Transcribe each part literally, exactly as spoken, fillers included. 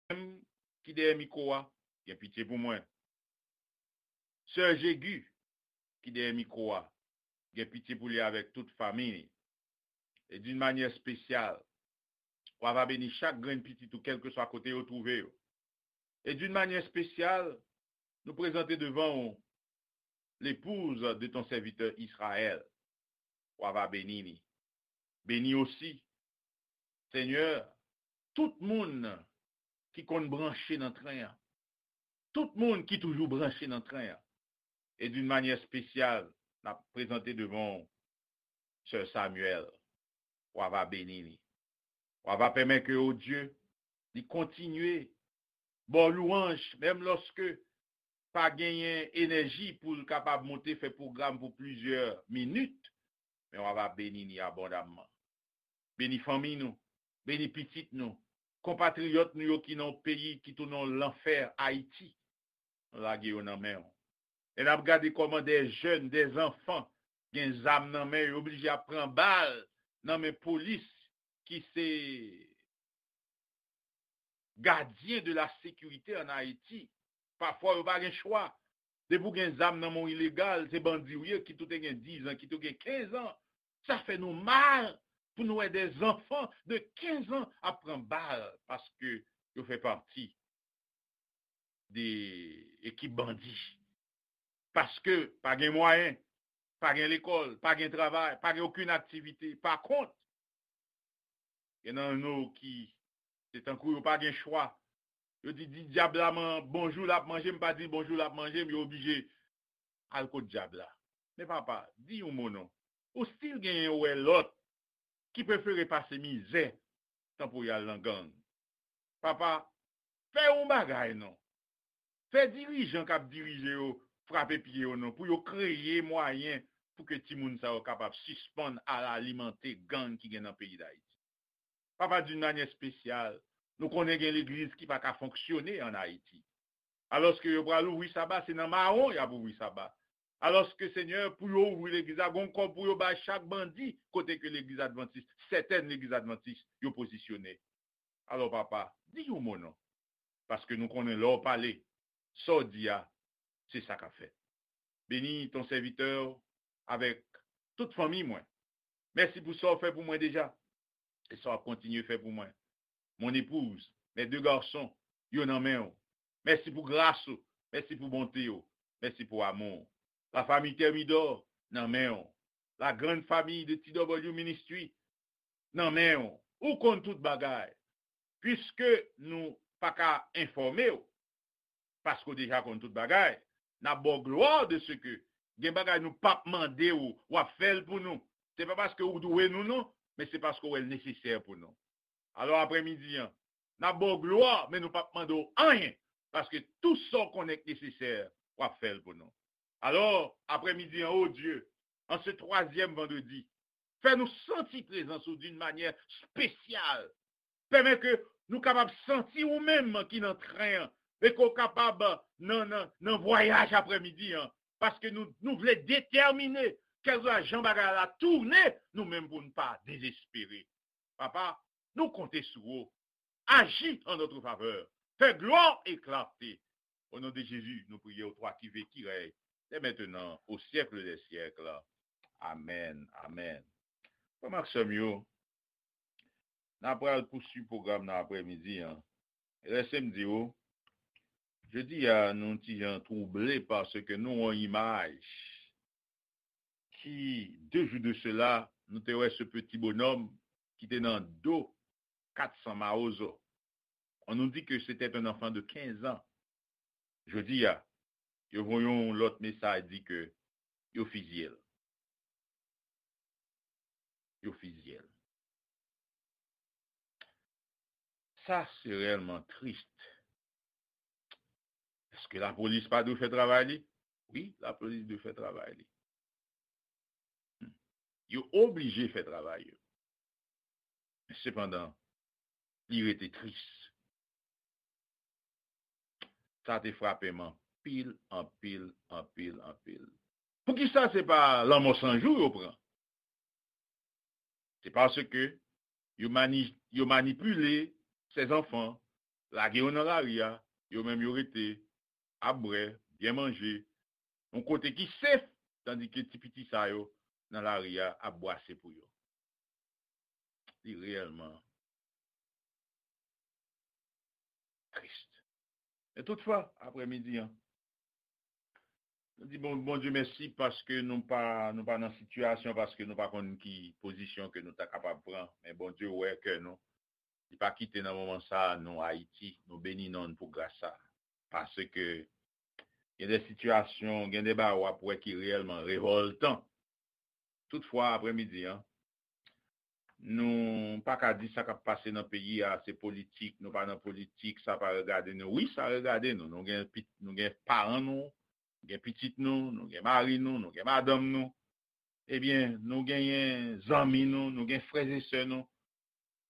menm ki dèyè mikwo a, gen pitye pou mwen. Sè Jegi, ki dèyè mikwo a, gen pitye pou li avèk tout fanmi li. E d'une manière spéciale, w a va beni chak grenn pitit ou, kèlkeswa kote yo twouve yo. Et d'une manière spéciale, nou prezante devan ou l'épouse de ton serviteur Israël. W a va beni li. Beni osi, Senyè, tout moun ki konn branche nan tren an. Tout moun ki toujou branche nan tren an. E d'une manière spéciale, n ap prezante devan w Sè Samuel. W a va beni li. W a va pèmèt ke, o Dye, li kontinye ba w lwanj, menm lòske pa genyen enèji pou l kapab monte fè pwogram pou plizyè minit, men w a va beni li abondamman. Beni fanmi nou, beni pitit nou, konpatriyòt nou yo ki nan yon peyi ki tounen yon lanfè, Ayiti. Nou lage yo nan men w. E n ap gade kòman de jèn, de zanfan gen zam nan men yo, oblije ap pran bal nan men polis ki se gadyen de la sécurité en Haïti. Pafwa yo pa gen chwa. Depi w gen zam nan men w ilegal, se bandi w ye, kit ou te gen diz an, kit ou gen kenz an. Sa fè nou mal pou nou wè de zanfan de kenz an ap pran bal paske yo fè pati de ekip bandi. Paske pa gen mwayen, pa gen lekòl, pa gen travay, pa gen okenn aktivite. Pa kont, gen nan nou ki se tankou yo pa gen chwa. Yo di, di dyab la man, bonjou l ap manje m, pa di l bonjou l ap manje m, yo oblije al kot dyab la. Men papa, di yon mo non. Ou still genyen wè lòt ki prefere pase mizè tan pou y al nan gang. Papa, fè yon bagay non. Fè dirijan k ap dirije yo frape pye yo non, pou yo kreye mwayen pou ke timoun sa yo kapab sispann al alimante gang ki gen nan peyi Dayiti. Papa, d'une manière spéciale, nou konnen gen legliz ki pa ka fonksyone an Ayiti. Alòske yo pral ouvri saba, se nan mawon y ap ouvri saba. Alòske, Senyè, pou yo ouvri legliz la, gon kòb pou yo bay chak bandi kote ke legliz advantis, sètèn legliz advantis, yo pozisyone. Alò, papa, di yon mo non. Paske nou konnen lè w pale, sa w di a, se sa k ap fèt. Beni ton sèvitè avèk tout fanmi mwen. Mèsi pou sa w fè pou mwen deja e sa w ap kontinye fè pou mwen. Mon épouse, mes deux garçons, yo nan men w. Mèsi pou gras ou, mèsi pou bonte w, mèsi pou amou w. La famille Thermidor nan men w. La grande famille de T W Ministry nan men w. Ou konn tout bagay. Piske nou pa ka enfòme w, paske w deja konn tout bagay, n ap ba w glwa de se ke gen bagay nou p ap mande w, w ap fè l pou nou. Se pa paske ou dwe nou non, men se paske w wè l nesesè pou nou. Alò, aprèmidi an, n ap ba w glwa, men nou p ap mande w anyen, paske tou sa w konnen k nesesè, w ap fè l pou nou. Alò, aprèmidi an, o Dye, an se twazyèm vandredi, fè nou santi prezans ou d'une manière spéciale. Pèmèt ke nou kapab santi ou menm ki nan tren an, e ke w kapab nan, nan, nan vwayaj aprèmidi an. Paske nou, nou vle detèmine, kèlkeswa jan bagay la tounen, nou menm pou n pa dezespere. Papa, nou konte sou ou. Aji an notre favè. Fè glwa e klarte. O non de Jezi, nou priye w, twa ki viv, ki rèy, dès maintenant, au siècle des siècles. Amèn, amèn. Frè m ak sè m yo, n a pral pouswiv pwogram nan aprèmidi an. Lèse m di w, jodi a, nou ti jan twouble paske nou wè yon imaj ki, deux jours de cela, nou te wè ce petit bonhomme ki te nan do kat san Mawozo. On nous dit que c'était un enfant de quinze ans. Jodi a, yo voye yon lòt mesaj di ke yo fizye l. Yo fizye l. Sa se reyèlman tris. Èske lapolis pa dwe fè travay li? Wi, lapolis dwe fè travay li. Hmm. Yo oblije fè travay yo. Men sepandan, li rete tris. Sa te frape m anpil, anpil, anpil, anpil. Poukisa se pa lanmò san jou yo pran? Se paske yo mani-, yo manipile ces enfants, lage yo nan lari a, yo menm yo rete, ap bwè, byen manje, yon kote ki sef, tandike ti piti sa yo nan lari a ap bwase pou yo. Li reyèlman tris. Men toutfwa, aprèmidi an, nou di bon, Bondye mèsi paske nou pa, nou pa nan sitiyasyon, paske nou pa konn ki pozisyon ke nou ta kapab pran. Men Bondye wè kè nou. Li pa kite nan moman sa a, nou, Ayiti, nou beni non l pou gras sa a. Paske gen de sitiyasyon, gen de bagay w ap wè ki reyèlman revòltan. Toutfwa, aprèmidi an, nou pa ka di sa k ap pase nan peyi a, se politik, nou pa nan politik, sa pa regade nou. Wi, sa regade nou. Nou gen pit-, nou gen paran nou, nou gen pitit nou, nou gen mari nou, nou gen madanm nou. Ebyen, nou genyen zanmi nou, nou gen frè e sè nou.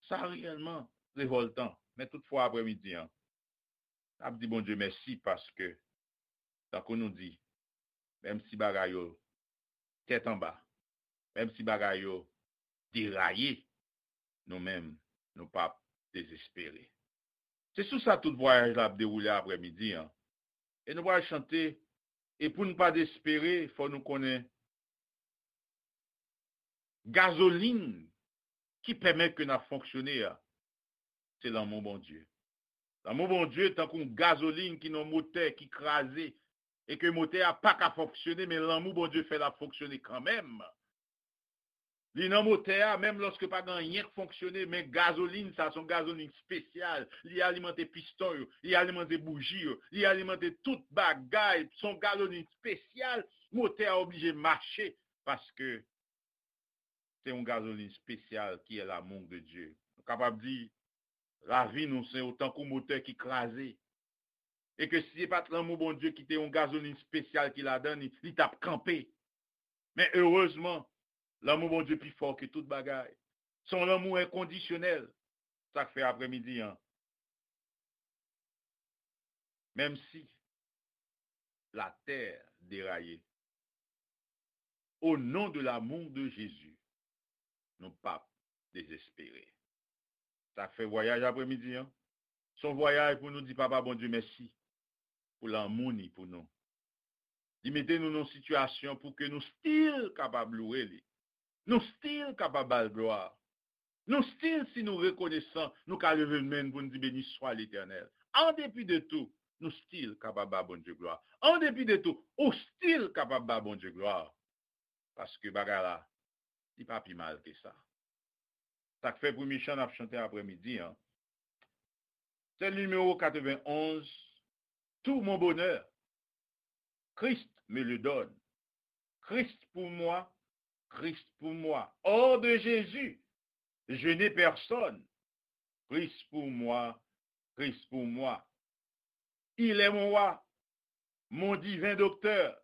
Sa reyèlman revòltan. Men toutfwa, aprèmidi an, n ap di Bondye mèsi paske, tankou nou di, menm si bagay yo tèt anba, menm si bagay yo deraye, nou menm, nou p ap dezespere. Se sou sa tout vwayaj la ap dewoule aprèmidi an. E nou pral chante, e pou n pa dezespere, fò nou konnen gazolin ki pèmèt ke n ap fonksyone a, se lanmou Bondye. Lanmou Bondye tankou yon gazolin ki nan motè ki kraze, e ke motè a pa ka fonksyone, men lanmou Bondye fè l ap fonksyone kanmenm. Li nan motè a, menm lòske pa gen anyen k fonksyone, men gazolin sa, se yon gazolin espesyal. Li alimante piston yo, li alimante bouji yo, li alimante tout bagay. Se yon gazolin espesyal. Motè a oblije mache, paske se yon gazolin espesyal ki è lamou de Dye. Nou kapab di, lavi nou se yon tankou motè ki kraze. E ke si se pa t lanmou Bondye ki te yon gazolin espesyal ki ladan li, li t ap kanpe. Men erezman, lanmou Bondye pi fò ke tout bagay. Se yon lanmou enkondisyonèl. Sa k fè aprèmidi an, menm si latè deraye, o non de lamou de Jezi, nou p ap dezespere. Sa k fè vwayaj aprèmidi an, se yon vwayaj pou nou di Papa Bondye mèsi pou lanmou ni pou nou. Li mete nou nan sitiyasyon pou ke nou still kapab louwe li. Nou still kapab ba l glwa. Nou still, si nou rekonesan, nou ka leve men n pou n di, beni swa Letènèl. An depi de tou, nou still kapab ba Bondye glwa. An depi de tou, ou still kapab ba Bondye glwa. Paske bagay la, li pa pi mal ke sa. Sa k fè premye chan n ap chante aprèmidi an, se nimewo katrevenn onz, Tout mon bonheur, Christ me le donne. Christ pour moi, Christ pour moi. Hors de Jésus, je n'ai personne. Christ pour moi, Christ pour moi. Il est mon roi, mon divin docteur.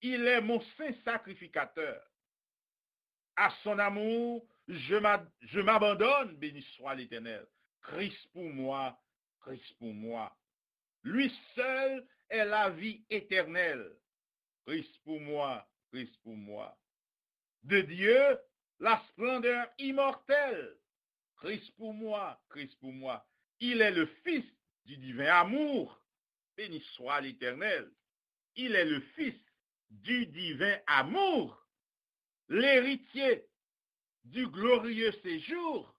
Il est mon saint sacrificateur. À son amour, je m'a-, je m'abandonne, béni soit l'Éternel. Christ pour moi, Christ pour moi. Lui seul est la vie éternelle. Christ pour moi, Christ pour moi. De Dieu, la splendeur immortelle. Christ pour moi, Christ pour moi. Il est le Fils du divin amour. Béni soit l'Éternel. Il est le Fils du divin amour, l'héritier du glorieux séjour.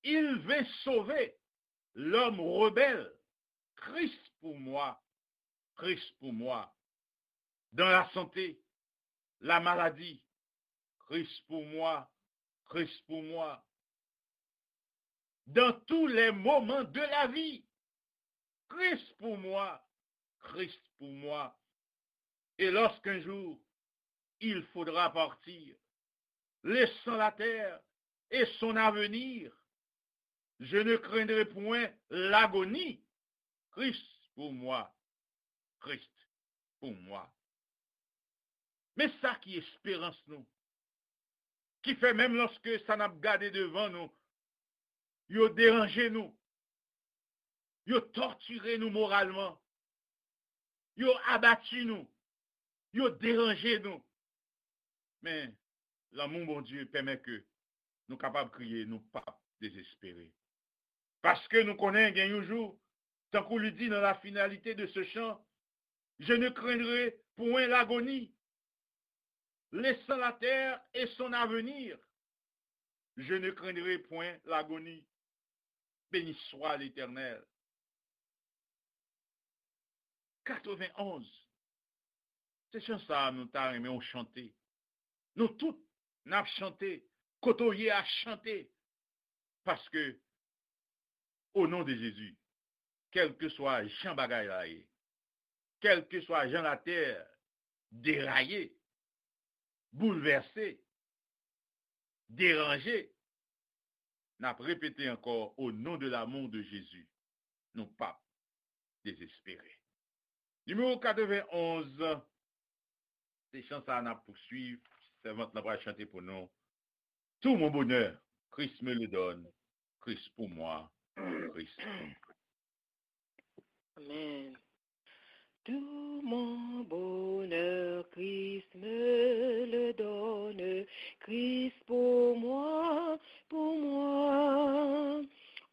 Il vint sauver l'homme rebelle. Christ pour moi, Christ pour moi. Dans la santé, la maladie, Christ pour moi, Christ pour moi. Dans tous les moments de la vie, Christ pour moi, Christ pour moi. Et lorsqu'un jour il faudra partir, laissant la terre et son avenir, je ne craindrai point l'agonie. Christ pour moi, Christ pour moi. Men sa ki esperans nou, ki fè menm lòske sa n ap gade devan nou, yo deranje nou, yo tòtire nou moralman, yo abati nou, yo deranje nou. Men, lanmou Bondye pèmèt ke nou kapab kriye, nou p ap dezespere. Paske nou konnen gen yon jou, tankou li di nan la finalité de ce chant, je ne craindrai point l'agonie, laissant la terre et son avenir. Je ne craindrai point l'agonie. Béni soit l'Éternel. Katrevenonz. Se chan sa a nou ta renmen w chante. Nou tout, n ap chante. Kote w ye a, chante. Paske, o non de Jezi, kèlkeswa jan bagay la ye, kèlkeswa jan latè deraye, boulvèse, deranje, n ap repete ankò, o non de lamou de Jezi, nou p ap dezespere. Nimewo katrevenonz, se chan sa a n ap pouswiv, sèvant lan pral chante pou nou. Tout mon bonheur, Christ me le donne, Christ pour moi, Christ pour moi. Amen. Tout mon bonheur, Christ me le donne, Christ pour moi, pour moi.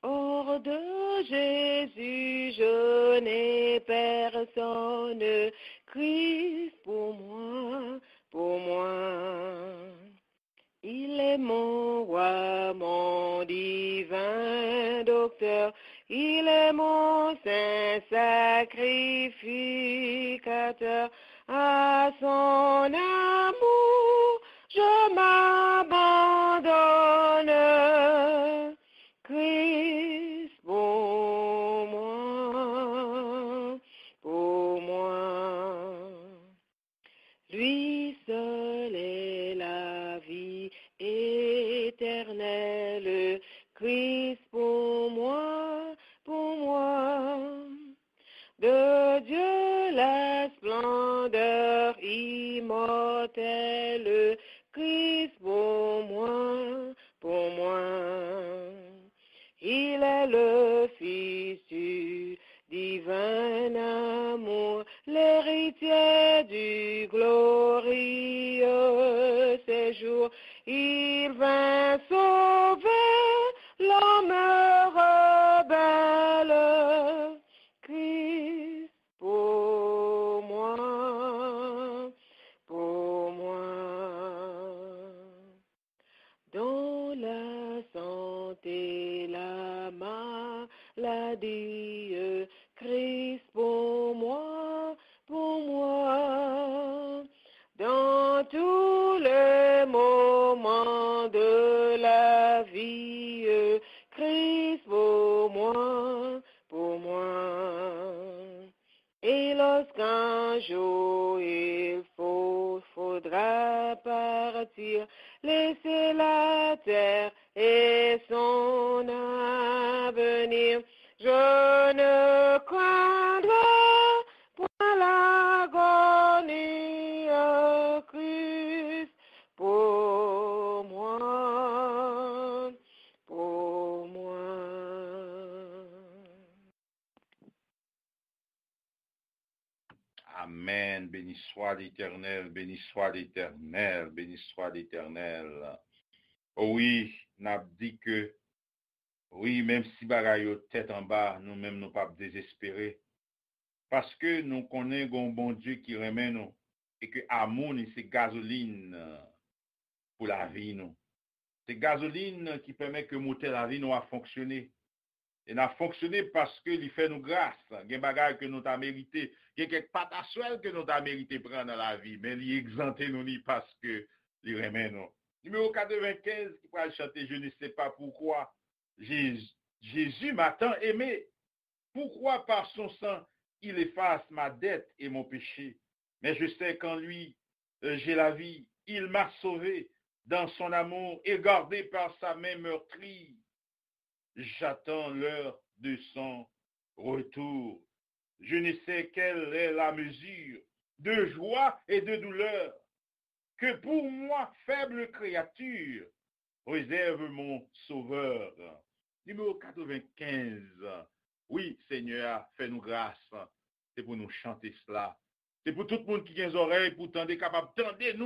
Hors de Jésus, je n'ai personne, Christ pour moi, pour moi. Il est mon roi, mon divin docteur, il est mon saint sacrificateur. À son amour, je m'abandonne. Christ pour moi, pour moi. Lui seul est la vie éternelle, Christ pour moi, pour moi. De Dieu la splendeur immortelle, Christ pour moi, pour moi. Il est le Fils du divin amour, l'héritier du glorieux séjour. Il vint sauver l'homme rebelle. Christ pour moi, pour moi. Dans la santé, la maladie, Christ pour moi, pour moi. Dans tous les moments de la vie, Christ pour moi, pour moi. Et lorsqu'un jour il faut, faudra partir, laisser la terre et son avenir, je ne craindrai point l'agonie, Christ pour moi, pour moi. Amèn. Béni soit l'Éternel, béni soit l'Éternel, béni soit l'Éternel. O wi, n ap di ke, wi, menm si bagay yo tèt anba, nou menm nou p ap dezespere. Paske nou konnen gen yon Bondye ki renmen nou e ke amou ni se gazolin pou lavi nou. Se gazolin ki pèmèt ke motè lavi nou a fonksyone. E n ap fonksyone paske li fè nou gras. Gen bagay ke nou ta merite, gen kèk pataswèl ke nou ta merite pran nan lavi, men li egzante nou li paske li renmen nou. Nimewo katrevenkenz ki pral chante Je ne sais pas pourquoi Jésus, Jésus m'a tant aimé. Pourquoi par son sang il efface ma dette et mon péché. Mais je sais qu'en lui, euh, j'ai la vie. Il m'a sauvé dans son amour et gardé par sa main meurtrie. J'attends l'heure de son retour. Je ne sais quelle est la mesure de joie et de douleur que pour moi, faible créature, réserve mon Sauveur. Nimewo katrevenkenz. Wi, Senyè a fè nou gras. Se pou nou chante sla. Se pou tout moun ki gen zòrèy pou tande, kapab tande nou.